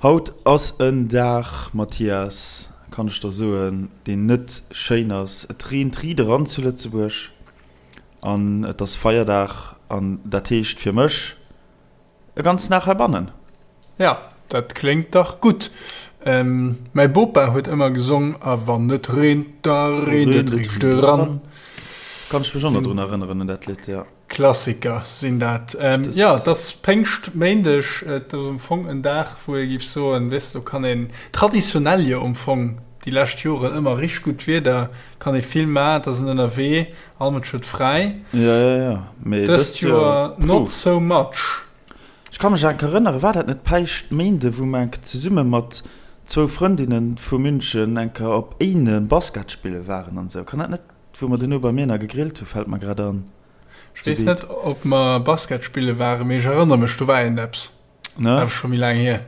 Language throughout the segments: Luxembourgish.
Haut ass en Dag, Mathias, kann ech der soen, deen net schéin ass. Et reent riit eran zu Lëtzebuerg an et ass Feierdag an dat heescht fir mech e ganzen Dag heibannen. Ja, dat kléngt dach gutt. Mäi Bopa huet ëmmer gesong, A wann et reent, da reent et riicht eran. Kann ech mech och nach drun erënneren un dat Lidd, jo. Klassiker sinn dat. Jo, et ass Péngschtméindeg, et ass am Fong en Dag, wou ee géif soen, weess de, do kann een, traditionell jo am Fong déi lescht Joren ëmmer richteg gutt Wieder, kann ee vill maachen, et ass een ënnerwee, all Mënsch huet fräi. Jo, jo, jo, mee dëst Joer not so much. Ech ka mech enk erënneren, war dat net Päischtméinde, wou mer enk zesumme mat zwou Frëndinne vu München enker op Éinen Basket spille waren an esou? Kann dat net, wou mer duerno bei mir nach gegrillt hu, fält mer grad an. Ech weess net, ob mer Basket spille waren, mee ech erënnere mech, do war iergendeppes. Ne? Awer scho méi laang hier.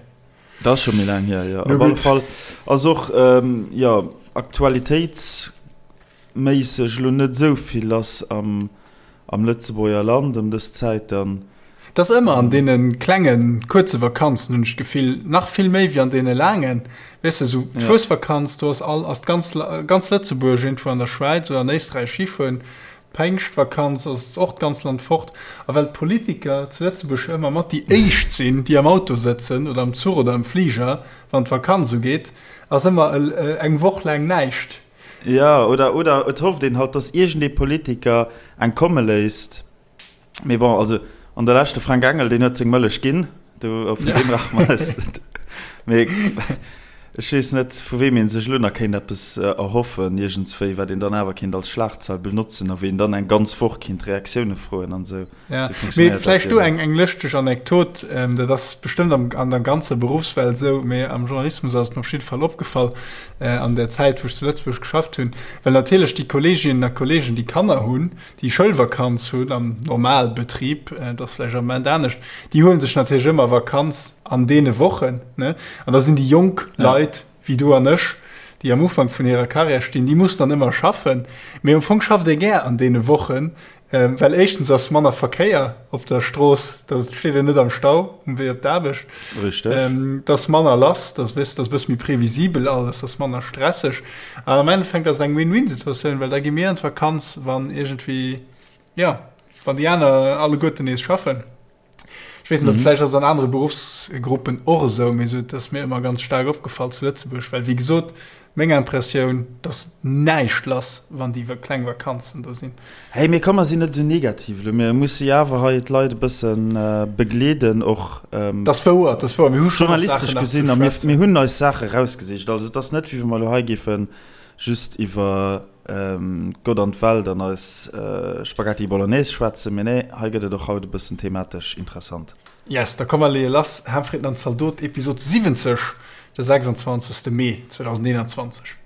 Dat ass scho méi laang hier, jo. Op alle Fall ass och, jo, aktualitéitsméisseg elo net esou vill lass am, am Lëtzebuerger Land ëm dës Zäit dann. Et ass ëmmer an deene klengen, kuerze Vakanzen, hunn ech d'Gefill, nach vill méi wéi an deene laangen. Weess de, esou d'Fuesvakanz, do ass all, ass d'ganz, ganz Lëtzebuerg iergendwou an der Schwäiz oder an Éisträich Schifueren. D'Päingschtvakanz ass och d'ganz Land fort. A well d'Politiker zu Lëtzebuerg jo ëmmer mat déi éischt sinn, déi am Auto sëtzen oder am Zuch oder am Fliger, wann d'Vakanz ugeet, ass ëmmer eng Woch laang näischt. Jo, oder, oder et hofft een halt, dass iergendee Politiker eng komme léisst. Mee bon, also an der Lescht, de Frank Engel, deen huet seng Mëllech ginn, do vun deem brauche mer eis net. Mee ech weess net, vu weem ee sech elo nach kéint eppes erhoffen iergendswéi, wat een dann awer kéint als Schlagzeil benotzen a wéi een dann eng ganz Woch kéint Reaktioune froen an esou. Ja, mee vläicht do eng, eng lëschteg Anekdot, dat ass bestëmmt am, an der ganzer Beruffswelt esou, mee am Journalismus ass et mir op jidde Fall opgefall an der Zäit, wou ech zu Lëtzebuerg geschafft hunn, well natierlech déi Kolleeginnen a Kolleegen, déi Kanner hunn, déi Schoulvakanz hunn am Normalbetrib, dat ass vläicht am Moment anescht, déi huele sech natierlech ëmmer Vakanz an deene Wochen. Ne? An da sinn déi jonk Leit wéi du an ech, déi am Ufank vun hirer Karriär stinn, déi mussen dann ëmmer schaffen. Mee am Fong schafft ee gär an deene Wochen, well éischtens ass manner Verkéier op der Strooss, da steet een net am Stau um Wee op d'Aarbecht. Richteg. Et ass manner lass, da weess, dat ass e bësse méi previsibel alles, dat ass manner stresseg. An am Endeffekt ass et eng Win-Win-Situatioun, well da gi mir an d'Vakanz, wann iergendwéi, jo, wann déi aner alleguerten nees schaffen. Ech weess net, ob vläicht ass et an anere Beruffsgruppen och esou, mee esou, et ass mir ëmmer ganz staark opgefall zu Lëtzebuerg, well wéi gesot, meng Impressioun, et ass näischt lass, wann déi kleng Vakanzen do sinn. Hey, mee komm, mer sinn net esou negativ elo. Mir musse jo awer hei d'Leit e bësse begleeden och. Dat ass wouer, dat ass wouer. Mir hu schonn och Saachen nach ze schwätzen. Journalistesch gesinn, a mir, mir hunn eis Saache rausgesicht. Also et ass net, wéi wa mer elo hei géife just iwwer Gott an d'Welt an eis Spaghetti Bolognese schwätzen. Mee nee, hei gëtt et och haut e bëssen thematesch interessant. Yes, da komm mer leeë lass. Ham, Fritten an Zaldot, Episod 70, de 26. Mee 2021.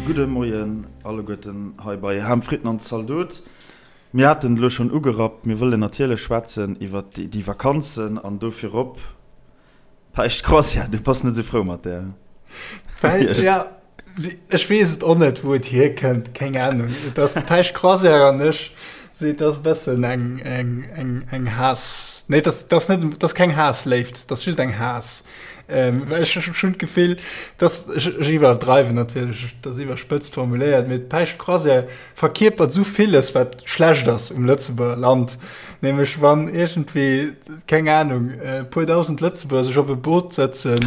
Gudde Moien alleguerten hei bei Ham, Fritten an Zaldot. Mir haten et elo schonn ugerappt, mir wëllen natierlech schwätzen iwwert déi Vakanzen an do virop Päischt Croisière. Du bass net esou frou mat där? Well, ja, ech weess et och net, wou et hierkënnt, keng Ahnung. Et ass d'Päischt Croisière an ech si, et ass e bëssen eng, eng, eng, eng Haass, nee, et ass, et ass net, et ass keng Haassléift, et ass just eng Haass. Ähm, well ech ech hunn d'Gefill, dass, ech, ech iwwerdreiwen natierlech, et ass iwwerspëtzt formuléiert, mee d'Päischt Croisière verkierpert esou villes, wat schlecht ass um Lëtzebuerger Land. Nämlech wann iergendwéi, keng Ahnung, e puer dausend Lëtzebuerger sech op e Boot sëtzen,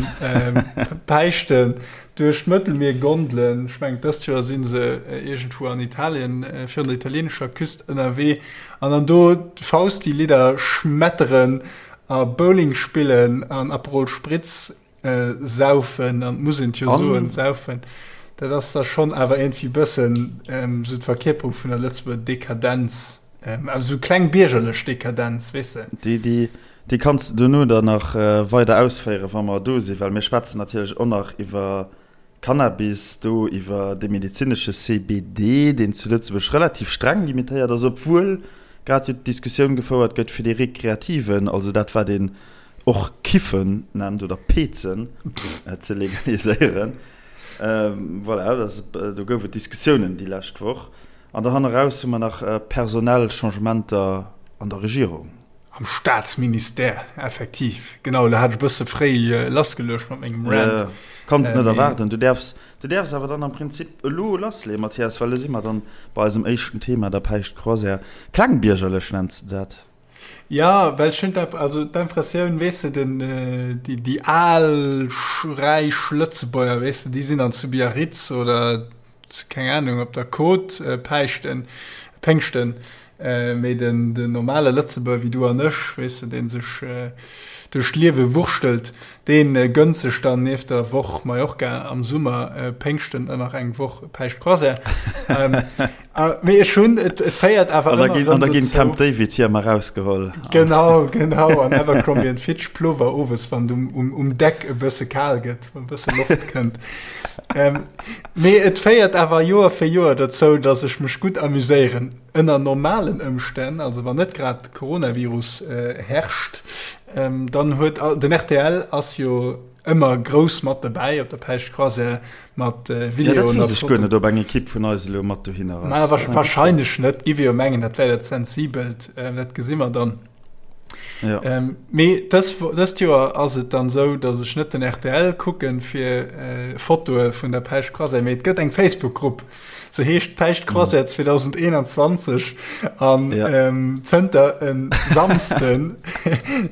Päischten duerch d'Mëttelmier gondelen, ech mengen dëst Joer si se iergendwou an Italien, virun der italienescher Küst ënnerwee, an dann do d'Fausti-Lidder schmetteren a Bowling spillen an Aperol Spritz Saufen, an muss een jo soen, saufen, dat ass da schonn awer iergendwéi bëssen esou d'Verkierperung vun der Lëtzebuerger Dekadenz, awer esou kleng biergerlech Dekadenz, weess de. Déi, déi kanns de dono dann nach weider ausféieren, wa mer do sinn, well mir schwätzen natierlech och nach iwwer Cannabis, do iwwer de medezinesche CBD, deen zu Lëtzebuerg relativ streng limitéiert ass, obwuel grad jo d'Diskussioun gefouert gëtt fir dee rekreativen, also dat wat een. och Kiffen nennt oder Pezen, ze legaliséieren. Voilà, do gouf et Diskussiounen déi lescht Woch. An da hanneraus hu mer nach personell Changementer an der Regierung. Am Staatsministère, effektiv. Genau, elo hat ech e bësse fréi lassgeluecht mat mengem Rant. Kanns et net erwaarden. Du däerfs, du däerfs awer dann am Prinzip elo lassleeën, Mathias, well elo si mer dann bei eisem éischten Thema, der Päischtcroisière. Klengbiergerlech nenns de dat. Ja, well ech hunn also d'Impressioun, weess de, den, déi, déi al räich Lëtzebuerger, weess de, déi sinn dann zu Biarritz oder keng Ahnung, op der Côte päischten, péngschten, mee den, den normale Lëtzebuerger wéi du an ech, weess de, dee sech duerch d'Liewe wurschtelt, dee gënnt sech dann nieft der Woch Mallorca am Summer Péngschten dann nach eng Woch Päischtcroisière. Mee ech hunn, et féiert awer ëmmer erëm dozou. An da ginn d'Camp David Hiemer erausgeholl. Genau, genau, an Abercrombie and Fitch Plover owes, wann et um Deck e bësse kal gëtt, wann e bësse Loft kënnt. Mee et féiert awer Joer fir Joer dozou, datt ech mech gutt amuséieren. Ënner normalen Ëmstänn, also wann net grad Coronavirus herrscht, dann huet den rtl ass jo ëmmer grouss mat dobäi op der Päischtcroisière mat Videoen. Ja, dat weess ech guer net, ob eng Ekipp vun eis elo mat dohinner ass. Ma wahrscheinlech net, giff ech jo mengen, dat wär dat Sensibelt. Dat gesi mer dann. Ja. Ähm, mee dës, dëst Joer ass et dann sou, datt ech net den rtl kucken fir äh, Fotoe vun der Päischtcroisière, mee et gëtt eng Facebook-Grupp, se heescht Päischtcroisière 2021 an ja. ähm, zënter en Samsden,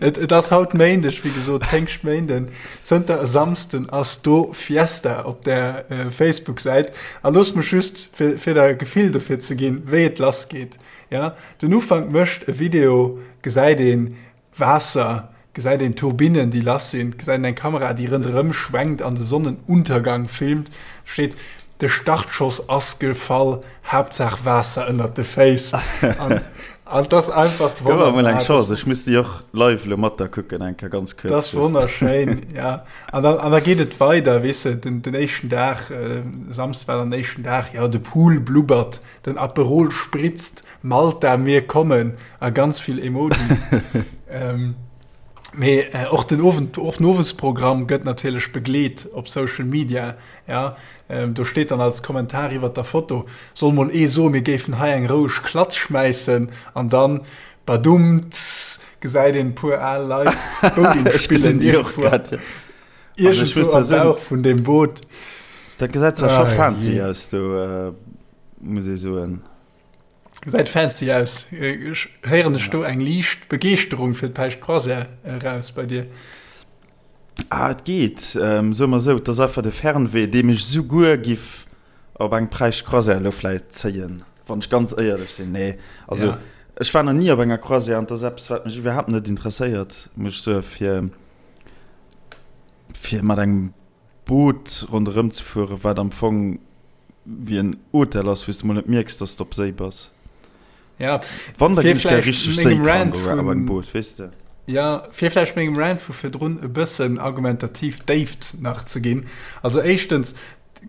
et, et ass haut Méindeg, wéi gesot, Péngschtméinden, zënter e Samsden ass do Fiesta op der äh, Facebook-Säit. A looss mech just, fir, fir der e Gefill dofir ze ginn, wéi et lassgeet. Ja, den Ufank mécht e Video, gesäit een Waasser, gesäit een Turbinnen déi lass sinn, gesäit een eng Kamera déi rënderëm schwenkt an de Sonnenuntergang filmt, steet de Startschoss ass gefall, Haaptsaach Waasser ënnert de Féiss an an et ass einfach Gëff mer mol eng Chance, ech muss déi och live elo mat der kucken eng Kéier ganz kuerz. Dat ass wonnerschéin, ja. An dann an da geet et weider, weess de, den den éischten Dag, Samsde war dann den éischten Dag, jo de Pool blubbert, Den Aperol spritzt, Malta, mir kommen a ganz vill Emojis. ähm, mee äh, och den Owend, och den Owesprogramm gëtt natierlech begleet op Social Media. Ja, ähm, do steet dann als Kommentar iwwer der Foto, soll mol ee soen, mir géifen hei eng roueg Klatz schmäissen an dann badumts gesäit een e puer al Leit Bowling spillen iergendwou. Iergendwou am Bauch vun deem Boot. Dat gesäit zwar scho fancy aus do. Muss ee soen. Gesäit fancy aus. Héieren ech do eng liicht Begeeschterung fir d'Päischtcroisière eraus bei dir? Ah, et geet. Soe mer esou, et ass einfach de Fernweh, dee mech souguer giff op eng Päischtcroisière elo vläicht zéien, wann ech ganz éierlech sinn. Nee, also ech war nach ni op enger Croisière an et ass eppes, wat mech iwwerhaapt net interesséiert, muss ech soen, fir, fir mat engem Boot ronderëm ze fueren, wat am Fong wéi en Hotel ass, wou s de mol net mierks, dass de op Séi bass. Ja, Wann, da ginn ech gär richteg séikrank op engem Boot, weess de. Ja, fir vläicht mengem Rant vu virdrun e bëssen argumentativ Déift nach ze ginn. Also éischtens,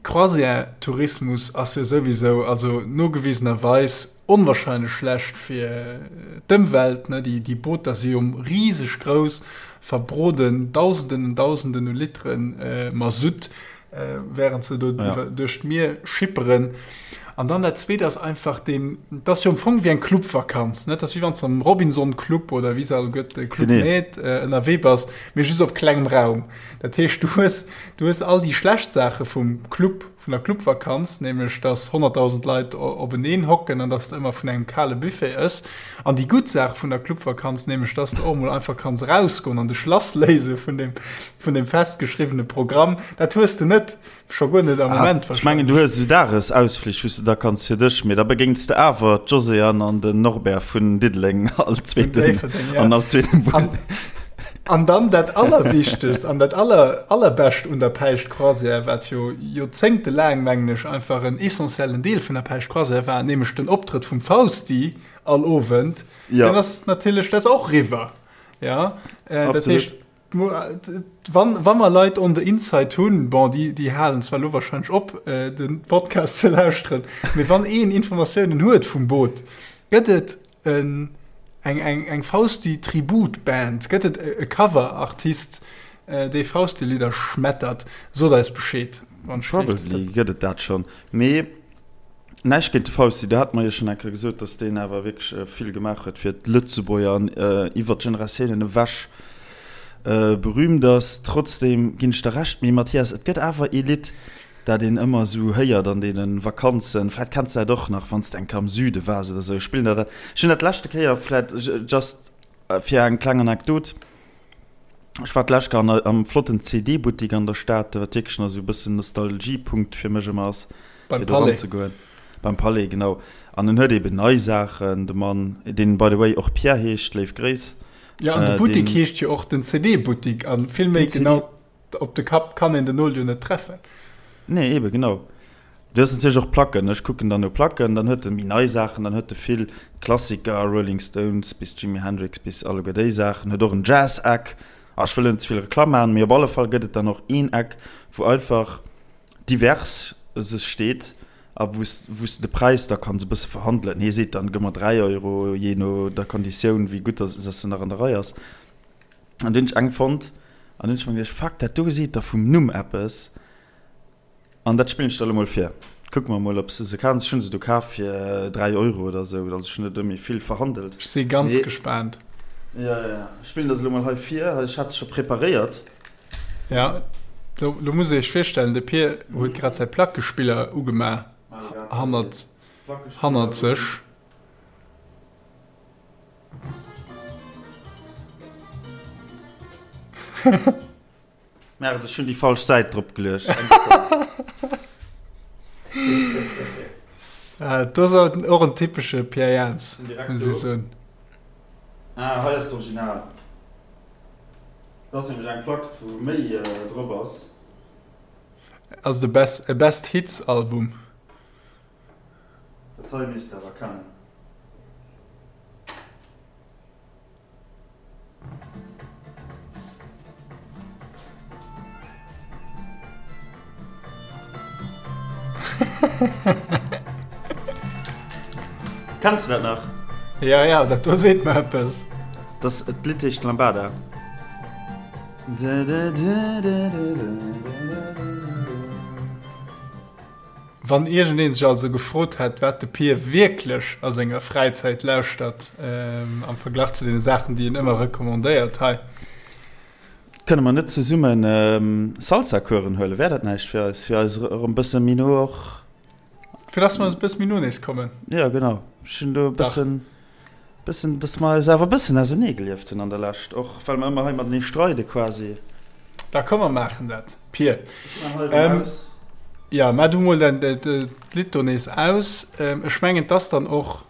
Croisière-Tourismus ass jo souwisou, also nogewisenerweis, onwahrscheinlech schlecht fir d'Ëmwelt, ne, déi, déi Booter si jo riseg grouss, verbroden Dausenden an Dausenden u Litere Masutt, während se do ja. duerch d'Mier schipperen. An dann dat Zweet ass einfach den, dat ass jo am Fong wéi eng Clubvakanz, ne, dat ass wéi wann s de am Robinson Club oder wéi se all gëtt, Club Med, ënnerwee bass, mee just op klengem Raum. Dat heescht, du hues, du hues all déi schlecht Saache vum Club, vun der Clubvakanz, nämlech dass 100.000 Leit openeen hocken an dass de ëmmer vun engem kale Buffet ëss, an déi gutt Saach vun der Clubvakanz, nämlech dass de och mol einfach kanns erausgoen an dech lassléise vun deem, vun deem festgeschriwwene Programm, dat hues de net, scho guer net am Moment Ech mengen, du hues esou Dagesausflich, wou s de da kanns fir dech, mee da begéints de awer d'Josée-Anne an den Norbert vun Diddeleng all zweeten, an all zweeten Bus. An dann dat Allerwichtegst an dat Aller, Allerbescht un der Päischtcroisière, wat jo joerzéngtelaang, mengen ech, einfach en essentiellen Deel vun der Päischtcroisière war, nämlech den Optrëtt vum Fausti all Owend, ja. deen ass natierlech, dat ass och eriwwer. Ja, äh, dat heescht, wann, wann mer Leit on the inside hunn, bon, déi, déi halen zwar lo wahrscheinlech op, äh, den Podcast ze lauschteren, mee wann een Informatiounen huet vum Boot, gëtt et en. eng, eng, eng Fausti-Tribut-Band? Gëtt et e Cover-Artist, dee Fausti-Lidder schmettert? Sot eis Bescheed, wann et schléift. Probably gëtt et dat schonn. Mee näischt géint de Fausti, do hate mer jo schonn eng Kéier gesot, datt deen awer wierklech vill gemaach huet fir d'Lëtzebuerger an iwwer d'Generatiounen ewech berühmt ass. Trotzdeem ginn ech der Recht. Mee Mathias, et gëtt awer ee Lidd, dat een ëmmer esou héiert an deene Vakanzen, vläit kenns de dat och nach, wann s de eng Kéier am Süde waars oder esou, spillen der dat. Ech hunn dat leschte Kéier, vläit just fir eng kleng Anekdot, ech war d'lescht Kéier an am flotten CD-Buttik an der Stad, wat wierklech nach esou e bëssen Nostalgiepunkt fir mech ëmmer ass, fir do eranzegoen. Beim Palais, genau. An en huet eeben nei Saachen, de Mann, deen by the way och Pierre heescht, léif Gréiss. Jo, an de Buttik heescht jo och den CD-Buttik a vill méi genau. Op de Kapp kann een den Nol jo net treffen. Nee, eben, genau. Du hues natierlech och Placken. Ech kucken dann no Placken, dann huet e méi nei Saachen, dann huet e vill Klassiker, Rolling Stones bis Jimi Hendrix bis alleguer déi Saachen, huet och en Jazz-Eck. Ah, ech wëll net ze vill Reklamm maachen, mee op alle Fall gëtt et dann och een Eck, wou einfach divers sech steet a wou s, wou s de de Präis da kanns e bësse verhandelen. Hie seet dann, gëmm mer 3 Euro, jee no der Konditioun, wéi gutt dass se nach an der Rei ass. An dunn hunn ech eng fonnt an dunn hunn ech mer geduecht, fuck, dat do seet der vum Numm eppes an dat spillen ech der elo mol vir. Kucke mer mol, ob s de se kanns. Ech hunn se du kaf fir 3 Euro oder esou, also ech hunn net ëmmi vill verhandelt. Ech si ganz gespaant. Jo, jo, jo, ech spillen der se elo mol hei vir. Ech hat se scho preparéiert. Ja, lo, lo muss ee sech virstellen, de Pir huet grad säi Plackespiller ugemaach hannert, hannert sech. Merde, ech hunn déi falsch Säit drop geluecht. Ah, das ass och en typesche Pierre Jans, muss ech soen. Ah, hei ass d'Original. Dat ass nämlech eng Plack, wou méi drop ass. Ass et e Best, e Best Hits Album? Dat hei misst de awer kennen. Kenns de dat nach? Ja, ja, dat do seet mer eppes. Dat Lidd heescht Lambada. Wann iergendeen sech also gefrot hätt, wat de Pir wierklech a senger Fräizäit lauschtert, am Verglach zu deene Saachen, déi en ëmmer recommandéiert hei. Kënne mer net zesumme Salsa-Coursen huelen? Wär dat näischt fir eis, fir eis erëm bësse méi no och. Fir dass mer eis e bësse méi no nees kommen? Jo, genau. Ech hunn do e bëssen. Bëssen, dass mer eis awer e bëssen ausenee gelieft hunn an der Lescht, och well mer ëmmer hei matenee streide quasi. Da komm mer maachen dat, Pir. Ech maan hei erëm aus. Jo, maach du mol däin d'Lidd do nees aus. Ech mengen, 't ass dann och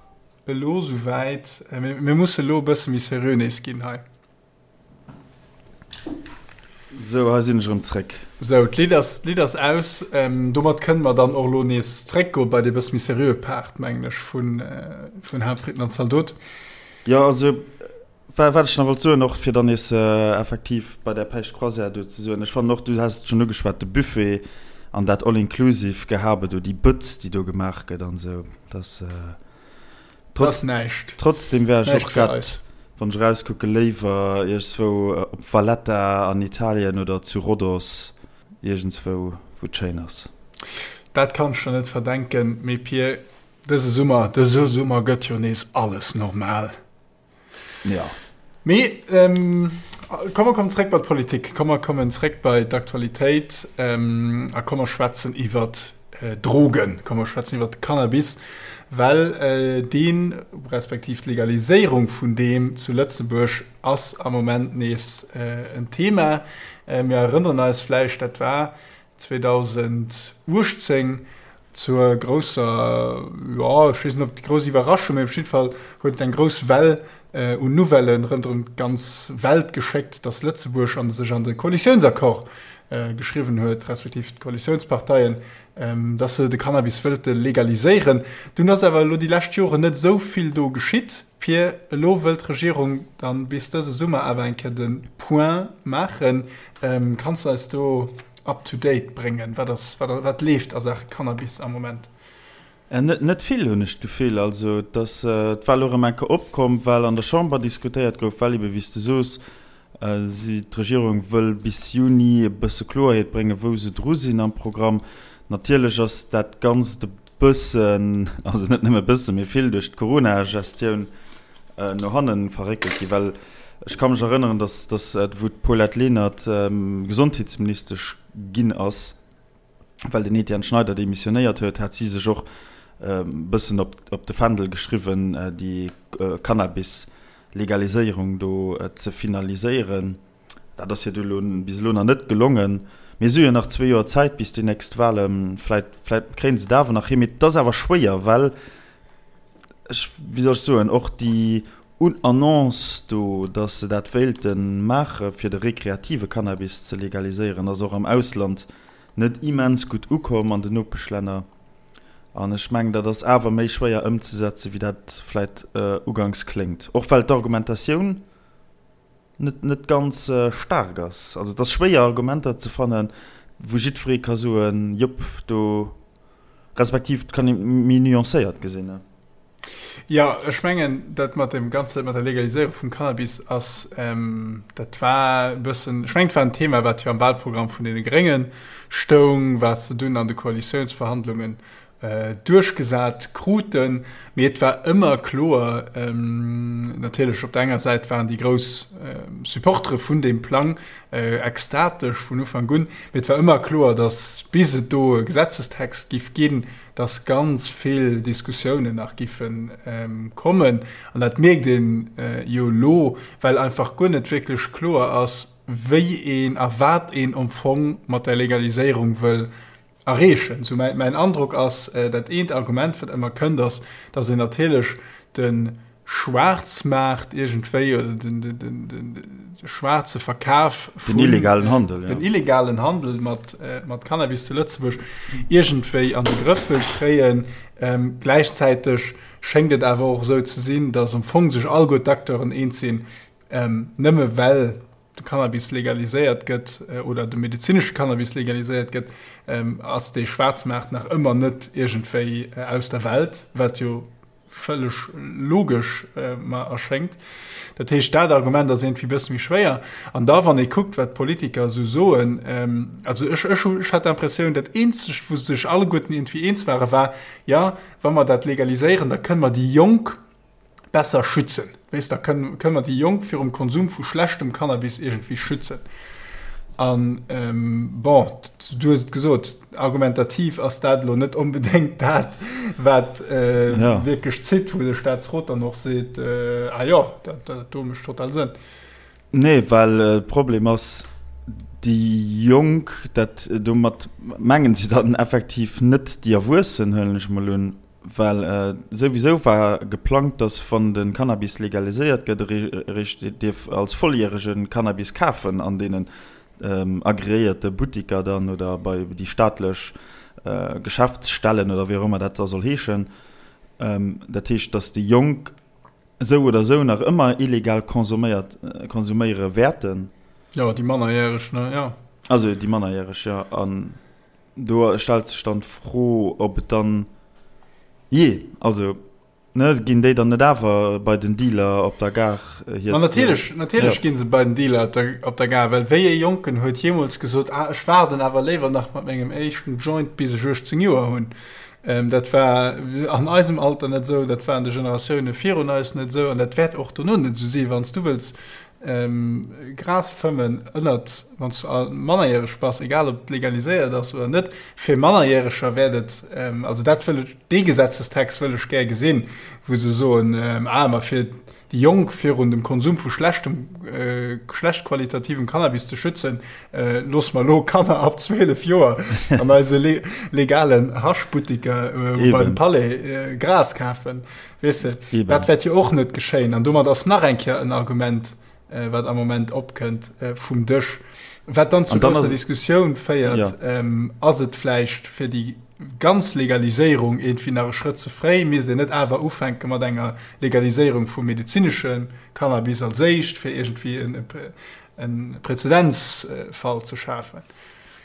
elo souwäit. Mir musse elo e bësse méi seriö nees ginn hei. Sou, hei sinn ech erëm zréck. Sou, d'Lidd ass, d'Lidd ass aus. Domat kënne mer dann och elo nees zréckgoe bei dee bësse méi seriöe Part, mengen ech, vun, vun Haaptfritten an Zaldot. Jo, also, wa, wat ech nach wollt soen, och fir dann nees effektiv bei där Päischt Croisière do ze soen, ech fannen och, du has et schonn ugeschwat, de Buffet an dat All-inclusive-Gehabe do, déi Bëtz, déi do gemaach gëtt an esou, dass. Trotz, Ass näischt. Trotzdem wär ech och grad, wann ech erauskucke, léiwer iergendswou op Valletta an Italien oder zu Rhodos, iergendswou, wou et schéin ass. Dat kann ech der net verdenken, mee Pir, dëse Summer, dëse Summer gëtt jo nees alles normal. Jo. Mee komm mer kommen zréck bei d'Politik, komm mer kommen zréck bei d'Aktualitéit a komm mer schwätzen iwwert Drogen, komm mer schwätzen iwwert de Cannabis, well deen, respektiv d'Legaliséierung vun deem zu Lëtzebuerg ass am Moment nees en Thema. Mir erënneren eis vläicht, dat war 2018 zur grousser, jo, ech weess net, ob grouss Iwwerraschung, mee op jidde Fall huet et eng grouss Well un Nouvellen ronderëm d'ganz Welt geschéckt, dass Lëtzebuerg an sech an de Koalitiounsaccord geschriwwen huet, respektiv d'Koalitiounsparteien, dass se de Cannabis wëllte legaliséieren. Dunn ass awer elo déi lescht Joren net esou vill do geschitt. Fir elo wëllt d'Regierung dann bis dëse Summer awer eng Kéier de Point maachen. Kanns de eis do up to date bréngen? Wat ass, wat leeft a Saache Cannabis am Moment? Net vill, hunn ech d'Gefill. Also et ass d'Wahl elo erëm eng Kéier opkomm, well an der Chamber diskutéiert gouf, well ebe wéi s de soos, si, d'Regierung wëll bis Juni e bësse Kloerheet bréngen, wou se dru sinn am Programm. Natierlech ass dat Ganzt e bëssen, also net nëmme e bëssen, mee vill duerch d'Corona-Gestioun no hanne verréckelt ginn, well ech ka mech erënneren, datt, datt wou d'Paulette Lenert Gesondheetsministesch ginn ass, well den Etienne Schneider demissionéiert huet, hat si sech och e bëssen op op de Fändel geschriwwen, déi Cannabis-Legaliséierung do ze finaliséieren. Dat ass hir du elo bis elo nach net gelongen. Mee si hu jo nach zwee Joer Zäit bis déi nächst Wahlen. Vläit vläit kréien se et awer nach hin. Mee et ass awer schwéier, well ech, wéi soll ech soen, och déi Un Annonce do, dass se dat wéilte maache fir de rekreative Cannabis ze legaliséieren, ass och am Ausland net immens gutt ukomm an den Nopeschlänner. An ech mengen, dat ass awer méi schwéier ëmzesetze wéi dat vläit uganks kléngt. Och well d'Argumentatioun net net ganz staark ass. Also et ass schwéier Argumenter ze fannen, wou jiddweree ka soen, jop do, respektiv et kann ee méi nuancéiert gesinn. Jo, ech mengen, dat mat dem Ganze, mat der Legaliséierung vum Cannabis ass, dat war e bëssen, ech mengen, et war en Thema, wat jo am Wahlprogramm vun deene Grénge stoung, wat se dunn an de Koalitiounsverhandlungen duerchgesat kruten. Mee et war ëmmer kloer, natierlech op der enger Säit waren déi grouss Supportere vun deem Plang ekstatesch vun Ufank un, mee et war ëmmer kloer, datt bis et do e Gesetzestext giff ginn, dass ganz vill Diskussiounen nach giffe kommen. An dat mierkt ee jo elo, well einfach guer net wierklech kloer ass, wéi een a wat een am Fong mat der Legaliséierung wëll erreechen. Sou mäin Androck ass, dat eent Argument, wat ëmmer kënnt, ass, dass een natierlech de Schwaarzmaart iergendwéi oder den, den, den, den, de schwaarze Verkaf vun den illegalen Handel, ja. den illegalen Handel mat, äh, mat Cannabis zu Lëtzebuerg iergendwéi an de Grëff wëll kréien. Ähm, gläichzäiteg schéngt et awer och esou ze sinn, datt am Fong sech alleguer d'Acteuren eens sinn, ähm, nëmme well de Cannabis legaliséiert gëtt äh, oder de medezinesche Cannabis legaliséiert gëtt, ähm, ass dee Schwaarzmaart nach ëmmer net iergendwéi äh, aus der Welt, wat jo vëlleg logesch mer erschéngt. Dat heescht, dat Argument ass iergendwéi e bësse méi schwéier. An da, wann ee kuckt, wat d'Politiker esou soen, also ech, ech hu, ech hat d'Impressioun, dat eenzegt, wou se sech alleguerten iergendwéi eens waren, war, jo, wa mer dat legaliséieren, da kënne mer déi Jonk besser schützen. Weess, da kënne mer déi Jonk virum Konsum vu schlechtem Cannabis iergendwéi schützen. An, bon, du hues et gesot, argumentativ ass dat elo net onbedéngt dat, wat wierklech zitt, wou de Staatsrot dann och seet, ah jo, dat do mécht total Sënn. Nee, well de Problem ass, déi Jonk, dat domat mengen se dann effektiv net déi Erwuessen, huelen ech emol un, Well souwisou war geplangt, datt wann de Cannabis legaliséiert gëtt, eréischt dierf als Volljärege Cannabis kafen an deenen agreéierte Buttiker dann oder bei déi staatlech Geschäftsstellen oder wéi och ëmmer dat da soll heeschen. Dat heescht, datt déi Jonk esou oder esou nach ëmmer illegal consomméiert, konsuméiere wäerten. Jo, déi Mannerjäreg, ne? Jo. Also déi Mannerjäreg, jo. An Do stellt sech dann d'Fro, ob et dann, jee, also, ne, ginn déi dann net awer bei den Dealer op der Gare hir. Ma natierlech, natierlech gi se bei den Dealer op der, op der Gare, well wéi ee Jonken huet jeemools gesot, ah, ech waarden awer léiwer nach mat mengem éischten Joint, bis ech 18 Joer hunn. Dat war an eisem Alter net esou, dat war an de Generatioune virun eis net esou an dat wäert och dono net esou sinn. Wann s du wëlls Gras fëmmen ënnert, wann s du mannerjäreg bass, egal ob et legaliséiert ass oder net, fir Mannerjäreger wäert et, also dat wëll ech, dee Gesetzestext wëll ech gär gesinn, wou se soen, ah ma fir déi Jonk virun dem Konsum vu schlechtem, schlecht qualitativem Cannabis ze schützen, loosse mer elo Kanner ab 12 Joer an eise legalen Haschbuttiker beim Palais Gras kafen. Weess de, Eben. Dat wäert jo och net geschéien. An domat ass nach eng Kéier en Argument, äh, wat am Moment opkënnt, äh, vum Dësch. Wat dann zu grousser Diskussioun féiert, ja. ähm, ass et vläicht fir déi ganz Legaliséierung irgendwie nach e Schrëtt ze fréi? Misst een net awer ufänke mat enger Legaliséierung vum medezinesche Cannabis als éischt, fir irgendwie en, en Präzedenzfall ze schafen?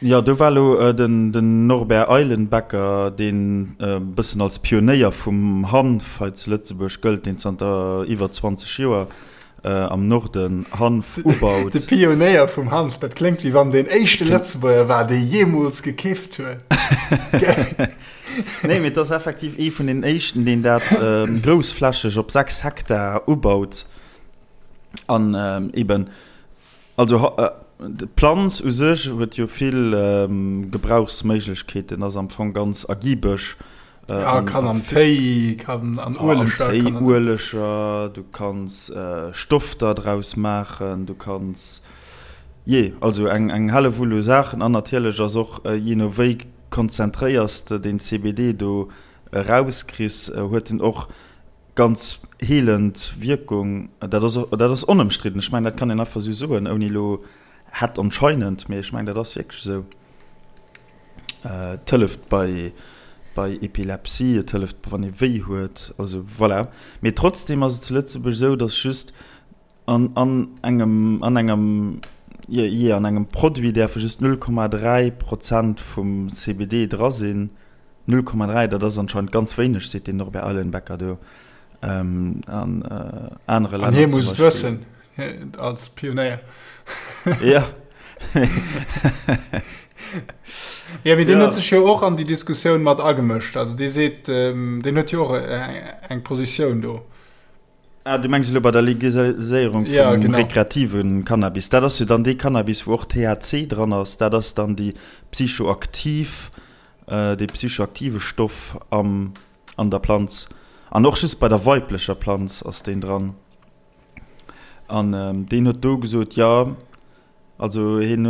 Jo, do war elo den Norbert Eilenbecker, deen e bëssen als Pionéier vum Hanf hei zu Lëtzebuerg gëllt, deen zanter iwwer 20 Joer am Norden Hanf ubaut. De Pionéier vum Hanf, dat kléngt wéi wann deen éischte Lëtzebuerger war, dee jeemools gekifft huet. Nee, mee et ass effektiv ee vun den éischten, deen dat groussflächeg op 6 Hektar ubaut an eben Also d'Planz u sech huet jo vill Gebrauchsméiglechkeeten, ass am Fong ganz ergibeg. Ja, kann am Téi, kann an Ueleger. Am Téi, Ueleger, du kanns Stofter draus maachen, du kanns, jee, also eng Hellewull u Saachen. An natierlech ass och, jee no wéi konzentréiers de den CBD do erauskriss, huet en och Ganz heelend Wierkung, dat ass, dat ass onëmstridden. Ech mengen, dat kann een einfach esou soen, ouni elo hätt anscheinend, mee ech mengen, dat ass wierklech esou. Et hëlleft bei, bei Epilepsie, et hëlleft, wann ee wéi huet, also voilà. Mee trotzdem ass et zu Lëtzebuerg esou, datt just An an engem, an engem, jee, an engem Produit däerfe just 0,3 Prozent vum CBD dra sinn. 0,3, dat ass anscheinend ganz wéineg, seet den Norbert Eilenbecker do. An anere Länner. An hie muss et wëssen, als Pionéier. Ja. Ja, mee deen huet sech jo och an déi Diskussioun mat agemëscht. Also dee seet, deen huet jo och eng Positioun do. Ah, du mengs elo bei der Legaliséierung vum ja, genau. rekreative Cannabis. Dat ass jo dann dee Cannabis, wou och THC dran ass. Dat ass dann déi psychoaktiv, äh, dee psychoaktive Stoff am, an der Planz. An och just bei der weiblecher Planz ass deen dran. An ähm, deen huet do gesot, ja, Also hien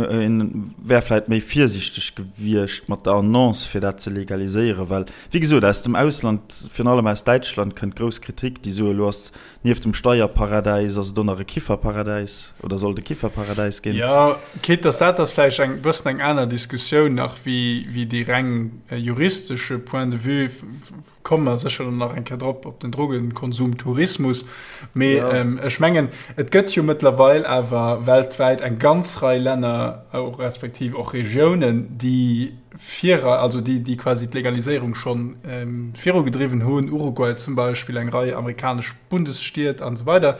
wär vläit méi virsiichteg gewiescht mat der Annonce, fir dat ze legaliséieren, well, wéi gesot, aus dem Ausland, virun allem aus Däitschland, kënnt grouss Kritik, déi soen, elo ass nieft dem Steierparadäis ass et och nach e Kifferparadäis oder soll et e Kifferparadäis ginn. Jo, quitte dass dat ass vläicht eng bëssen eng aner Diskussioun nach wéi déi reng juristesche Point de vue. Komme mer sécher dann nach eng Kéier drop, op den Drogenkonsumtourismus. Mee ja. ähm, ech mengen, et gëtt jo mëttlerweil awer weltwäit eng ganz Rei Länner, och respektiv och Regiounen, déi vir, also déi, déi quasi d'Legaliséierung schon ähm, virugedriwwen hunn, Uruguay zum Beispill, eng Rei amerikanesch Bundesstied an esou weider.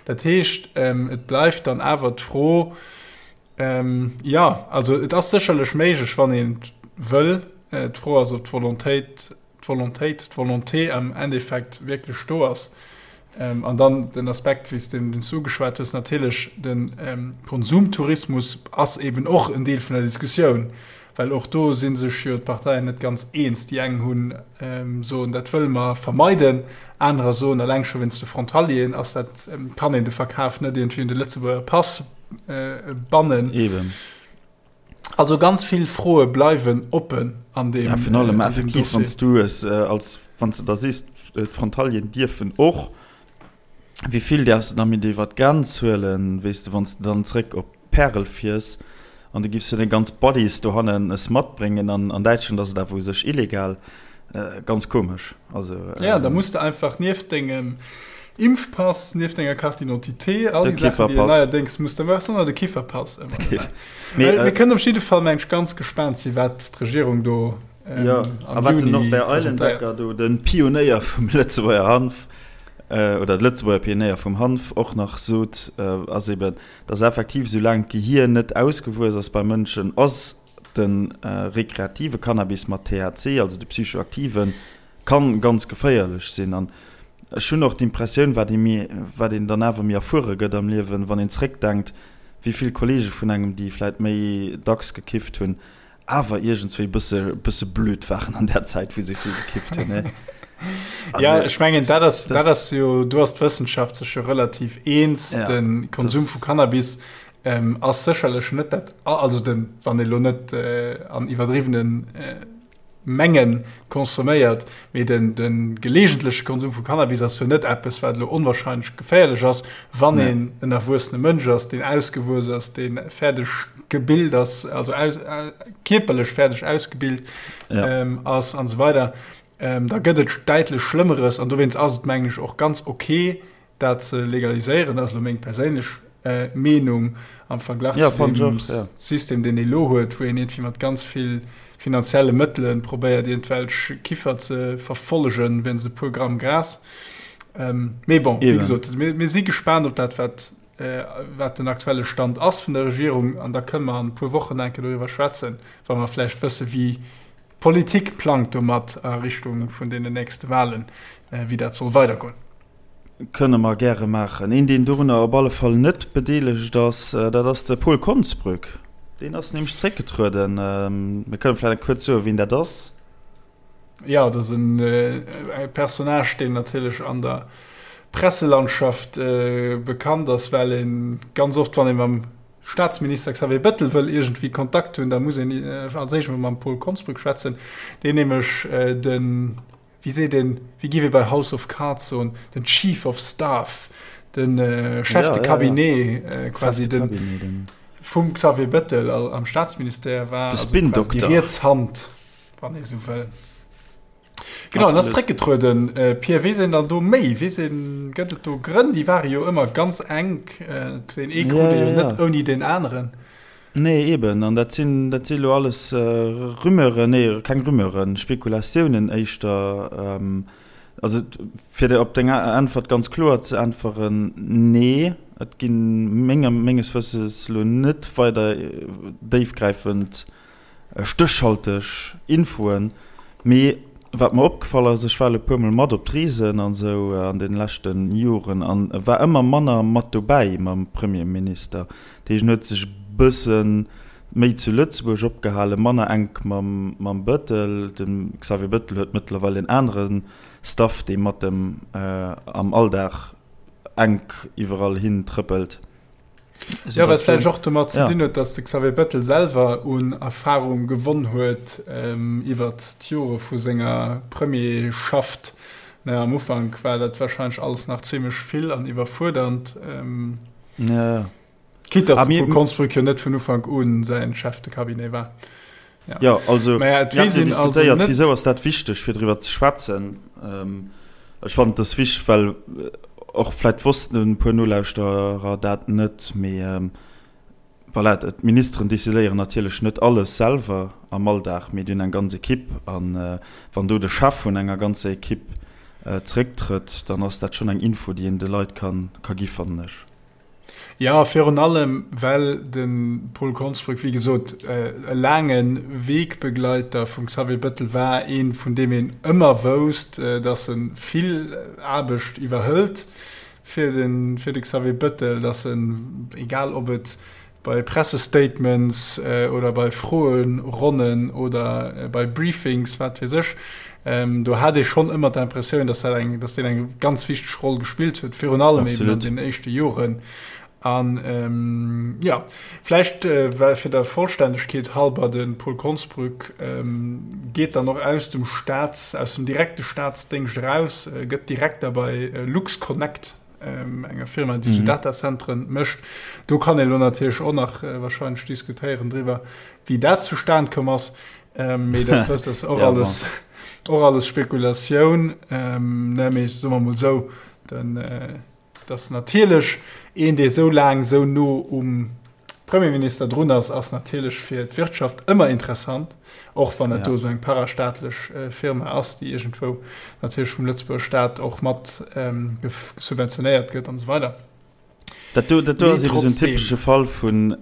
Dat heescht, ähm, et bleift dann awer d'Fro, Ähm, ja, also et ass sécherlech méiglech, wann een wëll. Äh, d'Fro ass, ob d'Volontéit, d'Volontéit, d'Volonté am Endeffekt wierklech do ass. Ähm, an dann den Aspekt, wéi s de den ugeschwat hues, natierlech den ähm, Konsumtourismus ass eben och en Deel vun der Diskussioun, well och do si sech jo d'Parteien net ganz eens. Déi eng hunn ähm, soen, dat wëlle mer vermeiden, anerer soen, eleng scho wéinst de Frontalieren ass dat, ähm, kann een de Verkaf net iergendwéi un de Lëtzebuerger Pass bannen. Eben. Also ganz vill Froe bleiwen oppen an deem. Ja, virun allem effektiv, wann s du es als, wann s de da sees, d'Frontalieren dierfen och, wéi vill däerfs de da mit iwwer d'Grenz huelen, weess de, wann s de dann zréck op Pärel fiers an du giffs jo deng ganz Buddies dohannen es matbréngen an an Däitschland ass et awer u sech illegal. Ganz komesch. Also, ja, da muss de einfach nieft dengem Impfpass, nieft denger Carte d'identité, all déi Saachen, déi neierdéngs muss, da wars du de Kifferpass ëmmer dobäi. Mee, äh, mir kënnen op jidde Fall meng ech ganz gespaant si wat d'Regierung do ähm, ja, a wat den Norbert Eilenbecker do, den Pionéier vum Lëtzebuerger Hanf, äh, oder de Lëtzebuerger Pionéier vum Hanf och nach sot, äh, ass eben, dass effektiv soulaang d'Gehier net ausgewuess ass bei Mënschen, ass De rekreative Cannabis mat THC, also de psychoaktiven, kann ganz geféierlech sinn. An ech hunn och d'Impressioun, wat ee méi, wat een dann awer méi erfuere gëtt am Liewen, wann een zréckdenkt, wéi vill Kollege vun engem, déi vläit méi dacks gekifft hunn, awer iergendswéi bësse, bësse blöd waren an där Zäit, wou se vill gekifft hunn, ne? Also, ja, ech mengen, dat ass, dat ass jo, do ass d'Wëssenschaft sech jo relativ eens, ja, de Konsum vu Cannabis Ass sécherlech net dat, also den, wann ee lo net an iwwerdriwwene Menge consomméiert, mee den, de geleegentleche Konsum vu Cannabis ass jo net eppes, wat elo onwahrscheinlech geféierlech ass, wann een en erwuessene Mënsch ass, deen ausgewuess ass, dee fäerdeg gebilt ass, also aus, kierperlech fäerdeg ausgebilt ass an esou weider. Da gëtt et däitlech Schlëmmeres an dowéinst ass et, mengen ech, och ganz ok, Dat ze legaliséieren ass elo meng perséinlech. Meenung am Verglach ja, zu dem och, ja. System, deen ee lo huet, wou een iergendwéi mat ganz vill finanzielle Mëttele probéiert, iergendwelch Kiffer ze verfollegen, wéinst e puer Gramm Gras. Ähm, mee bon, wéi gesot, mir, mir si gespaant op dat, wat, äh, wat den aktuelle Stand ass vun der Regierung an da kënne mer an e puer Wochen enke doriwwer schwätzen, wa mer vläicht wësse wéi d'Politik plangt domat a Richtung vun deenen nächste Wahlen, äh, wéi dat soll weidergoen. Kënne mer gäre maachen. Een, deen dorunner op alle Fall net bedeelegt ass, dat ass de Paul Konsbrück. Deen ass nämlech zeréckgetrueden. Mir kënne vläicht kuerz soen, wien dat ass. Jo, dat ass e Personnage, deen natierlech an der Presselandschaft bekannt ass, well e ganz oft, wann ee mam Staatsminister Xavier Bettel wëll iergendwéi Kontakt hunn, da muss een als éischt emol mam Paul Konsbrück schwätzen, deen nämlech den, wéi seet een, wéi giff ee bei House of Cards soen, den Chief of Staff, de Chef de Cabinet quasi den vum Xavier Bettel am Staatsministère war, de Spin-Dokter, déi riets Hand, wann ee sou wëll. Genau, en ass zréckgetrueden. Pierre, weess een dann do méi? Weess een, gëtt et do Grënn? Déi ware jo ëmmer ganz enk, deen ee krut ee jo net ouni deen aneren. Nee, eben. An dat sinn, dat si elo alles Rumeuren, nee, keng Rumeuren, Spekulatiounen éischter. Also, fir der op deng Äntwert ganz kloer ze äntweren, Nee, et gi menger, menges Wësses elo net weider déifgräifend stéchhalteg Infoen, mee wat mer opgefall ass, ech war elo e puer mol mat op d'Reesen an esou an den leschte Joren an war ëmmer manner mat dobäi mam Premierminister. Dat heescht, en huet sech e bësse méi zu Lëtzebuerg opgehalen, manner enk mam Bëttel. De Xavier Bëttel huet mëttlerweil en anere Staff, dee mat em am Alldag enk iwwerall hin trëppelt. Jo, wat vläicht och domat ze dinn huet, datt de Xavier Bettel selwer un Erfarung gewonn huet iwwert d'Jore vu senger Premierschaft. Am Ufank war dat warscheinlech alles nach zimmlech vill an iwwerfuerdernd. Quitte datt de Paul Konsbrück jo net vun Ufank u säin Chef de Cabinet war. Jo, also mir haten jo diskutéiert, wisou ass dat wichteg, fir driwwer ze schwätzen. Ech fannen, et ass wichteg, well och vläicht wossten e puer Nolauschterer dat net, mee voilà, d'Ministeren decidéieren natierlech net alles selwer am Alldag, mee déi hunn eng ganz Ekipp. A wann do de Chef vun enger ganzer Ekipp zerécktrëtt, dann ass dat schonn eng Info, déi een de Leit ka gi fannen ech. Jo, virun allem well de Paul Konsbrück, wéi gesot, e laange Wegbegleiter vum Xavier Bettel war, ee vun deem een ëmmer wousst, datt e vill Aarbecht iwwerhëlt fir de Xavier Bettel, datt en, egal ob et bei Pressestatements oder bei Froeronnen oder bei Briefings, wat weess ech, do hat ee schonn ëmmer d'Impressioun, dass dat eng, dass deen eng ganz wichteg Roll gespillt huet, virun allem eben an den éischte Joren. An jo, vläicht well fir der Vollständegkeet halber, de Paul Konsbrück geet dann och aus dem Staats, aus dem direkte Staatsdéngscht eraus, gëtt Direkter bei LuxConnect. enger Firma, déi sou Datacentren mécht. Do kann ee lo natierlech och nach wahrscheinlech diskutéieren driwwer, wéi dat zustan komm ass. Mee dat ass och alles, och alles Spekulatioun. Ne, mee soe mer mol sou, den, dass natierlech een, dee sou laang sou no um Premierminister drun ass, ass natierlech fir d'Wirtschaft ëmmer interessant, och wann et do esou eng parastaatlech Firma ass, déi iergendwou natierlech vum Lëtzebuerger Staat och mat subventionéiert gëtt an esou weider. Dat do, dat do ass eben esou en typesche Fall vun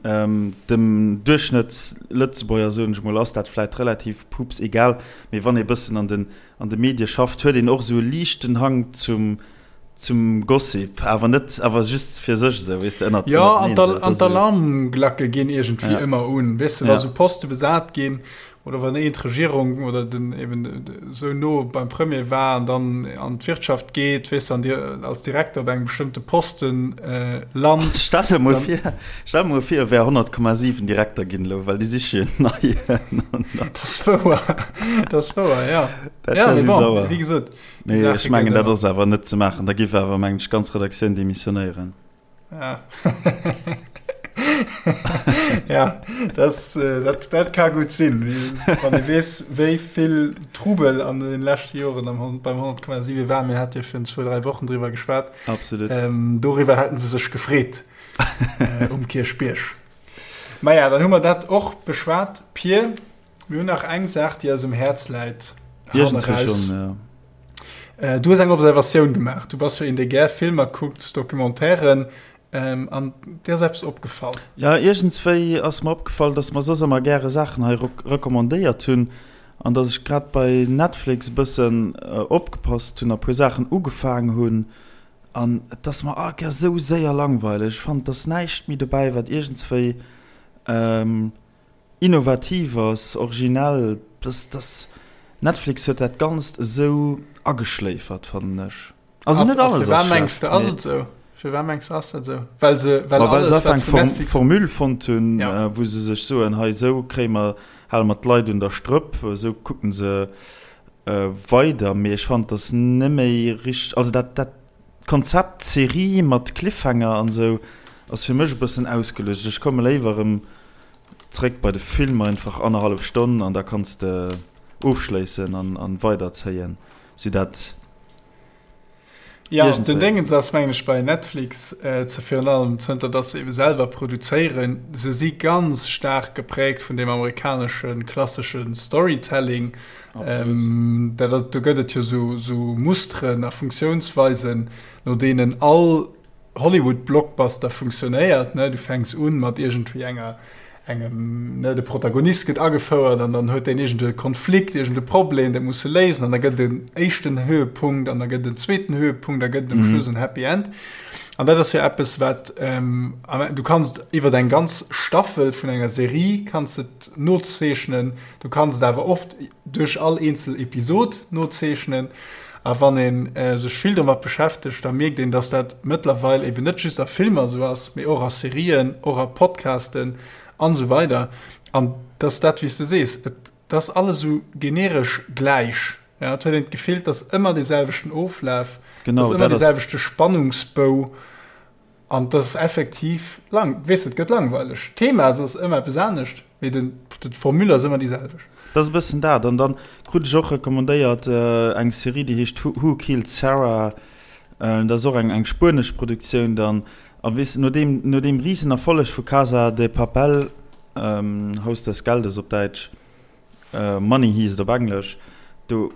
dem Duerchschnëttslëtzebuerger, soen ech mol, ass dat vläit relativ pups egal, mee wann ee bëssen an den, an de Medie schafft, huet een och esou e liichten Hang zum, Zum Gossip, awer net, awer just fir sech esou, weess de, ënnert, Jo, an d'Alarmglacke ginn iergendwéi ëmmer un, weess de, wa sou Poste besat ginn oder wann een d'Regierung oder den eben esou no beim Premier war an dann an d'Wirtschaft geet, weess de, an dir als Direkter op engem bestëmmte Posten lant. Stell der mol vir, stell der mol vir, e wär 100,7 Direkter ginn elo, well déi siche jo en neien. Dat ass wouer, dat ass wouer, jo. Dat wär esou sauer. Wéi gesot. Mee ech mengen, dat ass awer net ze maachen. Da giff awer, mengen ech, d'ganz Redaktioun demissionéieren. Ja. Ja, das, äh, dat, dat ka gutt sinn, wann ee weess, wéi vill Trubel an den leschte Joren am, beim 100,7 war. Mir hate jo virun zwou, dräi Wochen driwwer geschwat. Absolut. Ähm, doriwwer hätten se sech gefreet. Um Kierchbierg. Maja, dann hu mer dat och beschwat. Pir, mir hunn nach eng Saach, déi eis um Häerz läit. Iergendswéi schonn, ja. Äh, du hues eng Observatioun gemaach. Du bass jo een, dee gär Filmer kuckt, Documentairen. Ähm, an dir ass eppes opgefall. Ja, iergendswéi ass mer opgefall, dass mer soss ëmmer gäre Saachen hei recommandéiert hunn an dass ech grad bei Netflix e bëssen opgepasst hunn a puer Saachen ugefaang hunn an et ass mer all Kéier esou séier langweileg. Ech fannen, et ass näischt méi dobäi, wat iergendswéi innovativ ass, originell. Dass, dass Netflix huet dat Ganzt esou ageschléifert, fannen ech. Also net alles ass schlecht. Ass et esou? Firwat mengs du ass dat esou? Well se well alles wat vun Netflix Formule fonnt hunn, wou se sech soen, hei esou kréie mer, hale mer d'Leit un der Strëpp, esou kucken se weider. Mee ech fannen, dass net méi richteg, also dat dat Konzept Serie mat Cliffhanger an esou ass fir mech e bëssen ausgelutscht. Ech komme léiwer erëm zréck bei de Film, einfach annerhallef Stonn an da kanns de ofschléissen an weiderzéien, sou dat. Ja, den Déngens ass mengen ech bei Netflix äh, ze virun allem zënter dass se ebe selwer produzéieren, se si ganz staark geprägt vun dem amerikanesche klassesche Storytelling. Ähm, dat, do gëtt et jo sou, sou Musteren a Funktiounsweisen, no deenen all Hollywood-Blockbuster funktionéiert, ne? Du fänks un mat iergendwéi enger, engem, ne, de Protagonist gëtt agefouert an dann huet deen iergend e Konflikt, iergend e Problem, dat muss e léisen an da gëtt et en éischten Höhepunkt an da gëtt et en zweeten Höhepunkt, da gëtt et um Schluss en Happy End. An dat ass jo eppes, wat, du kanns et iwwer eng ganz Staffel vun enger Serie kanns et nozeechnen, du kanns et awer oft duerch all eenzel Episod nozeechnen. A wann ee sech vill domat beschäftegt, da mierkt een, dass dat mëttlerweil eben net just a Filmer esou ass, mee och a Serien, och a Podcasten an esou weider. An dass dat, wéi s de sees, et ass alles esou generesch gläich. Ja, et huet een d'Gefill, et ass ëmmer dee selwechten Oflaf, et ass ëmmer dee selwechte Spannungsbou. An dat ass effektiv lang, weess et gëtt langweileg. D'Thema ass ëmmer eppes anescht, mee den, d'Formule ass ëmmer déi selwecht. Dat ass e bëssen dat. An dann krut ech och recommandéiert eng Serie, déi heescht Who Killed Sara? Dat ass och eng, eng spuenesch Produktioun dann. A weess, no deem, no deem Risenerfolleg vu Casa de Papel, Haus des Geldes op Däitsch, Money Heist op Englesch, do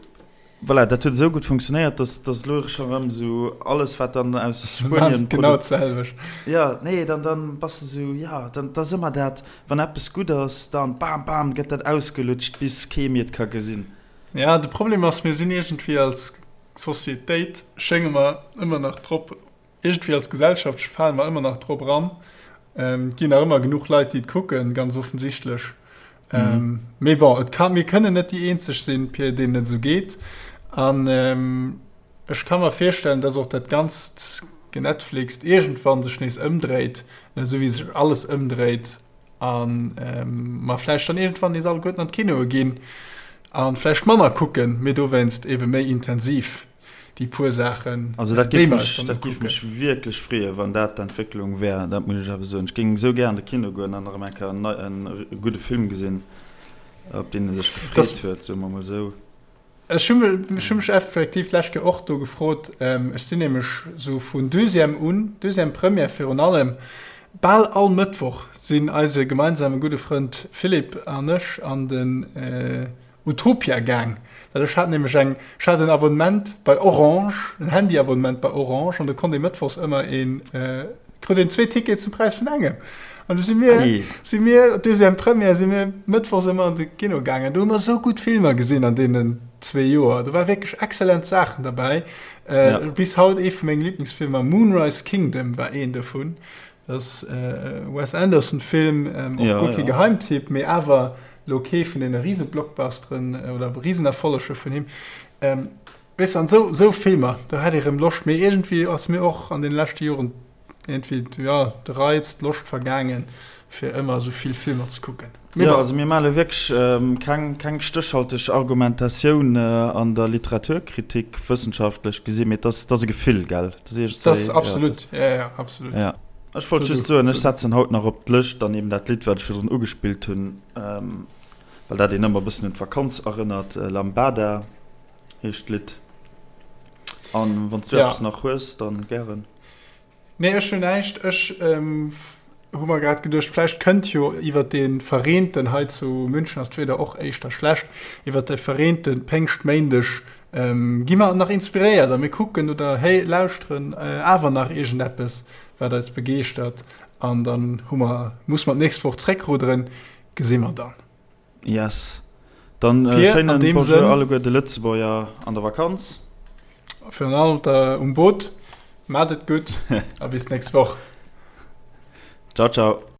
Voilà, dat huet esou gutt funktionéiert, dass dass elo scho rëm esou alles wat dann aus Spuenien genau d'selwecht. Ja, nee, dann dann bass de esou, ja, dann dat ass ëmmer dat, wann eppes gutt ass, dann bam bam gëtt dat ausgelutscht bis kee méi et ka gesinn. Ja, de Problem ass, mir sinn iergendwéi als Societéit schénge mer ëmmer nach drop Iergendwéi als Gesellschaft fale mer ëmmer nach drop eran. Et ginn nach ëmmer genuch Leit, déi et kucken, ganz offensichtlech. Mhm. Mee bon, et kann, mir kënnen net déi eenzeg sinn, Pir, deenen et esou geet. An ech ka mer virstellen, dass och dat ganzt Genetflixt iergendwann sech nees ëmdréit, esou wéi sech alles ëmdréit, a mer vläicht dann iergendwann nees alleguerten an d'Kinoe ginn a vläicht manner kucken, mee dowéinst ebe méi intensiv. déi puer Saachen. Also dat géif mech, dat géif mech wierklech freeën, wann dat d'Entwécklung wär, dat muss ech awer soen. Ech géing esou gär an de Kino goen an erëm eng Kéier en nei, en gudde Film gesinn, op deen ee sech gefreet huet, soe mer mol esou. Ech hu mech, ech hu mech effektiv d'lescht Kéier och do gefrot, ech sinn nämlech esou vun Deuxième un, Deuxième Première virun allem, bal all Mëttwoch sinn eise gemeinsame gudde Frënd Philippe an ech an den, Utopia gaang, well ech hat nämlech eng, ech hat en Abonnement bei Orange, en Handyabonnement bei Orange, an do konnt ee mëttwochs ëmmer een, krut een zwee Tickete zum Präis vun engem. An du si mir, si mir, Deuxième Première, si mir mëttwochs ëmmer an de Kino gaangen. Do hu mer esou gutt Filmer gesinn an deenen zwee Joer. Do war wierklech exzellent Saachen derbäi. Bis haut ee vu menge Liblingsfilmer, Moonrise Kingdom war een dovun. Dat ass e Wes Anderson Film, och guer kee Geheimtipp, mee awer lo kee vun deene Rise-Blockbusteren oder Risenerfolleger vun him. Weess de, an esou, esou Filmer, do hätt ee rëm Loscht, mee iergendwéi ass mir och an deene leschte Joren iergendwéi, jo, de Reiz, d'Loscht vergaangen, fir ëmmer esou vill Filmer ze kucken. Mee bon. Jo, also mir maache wierklech keng, keng stéchhalteg Argumentatioun an der Literaturkritik, wëssenschaftlech gesinn, mee et ass, et ass e Gefill, gell? Dat ass iergendwéi, Dat ass absolut, jo, jo, absolut. Ja. Ech wollt just soen, ech setzen haut nach op d'Lëscht dann eben dat Lidd, wat ech virdrun ugespillt hunn, well dat een ëmmer e bëssen un d'Vakanz erënnert, Lambada heescht d'Lidd. An wann s du eppes nach hues, dann gären. Nee, ech hunn näischt. Ech hu mer grad geduecht, vläicht kënnt jo iwwer dee verreenten, hei zu München ass d'Wieder och éischter schlecht, iwwer de verreente Péngschtméindeg gi mer nach inspiréiert a mir kucken oder héi lauschteren awer nach iergendeppes, wat eis begeeschtert an dann hu mer, musse mer d'nächst Woch zréckrudderen, gesi mer dann. Yes. Dann äh, Pir, schéinen Bonjour Sënn, alleguer de Lëtzebuerger an der Vakanz. Virun allem der um Boot. Maat et gutt a bis nächst Woch. Ciao, ciao.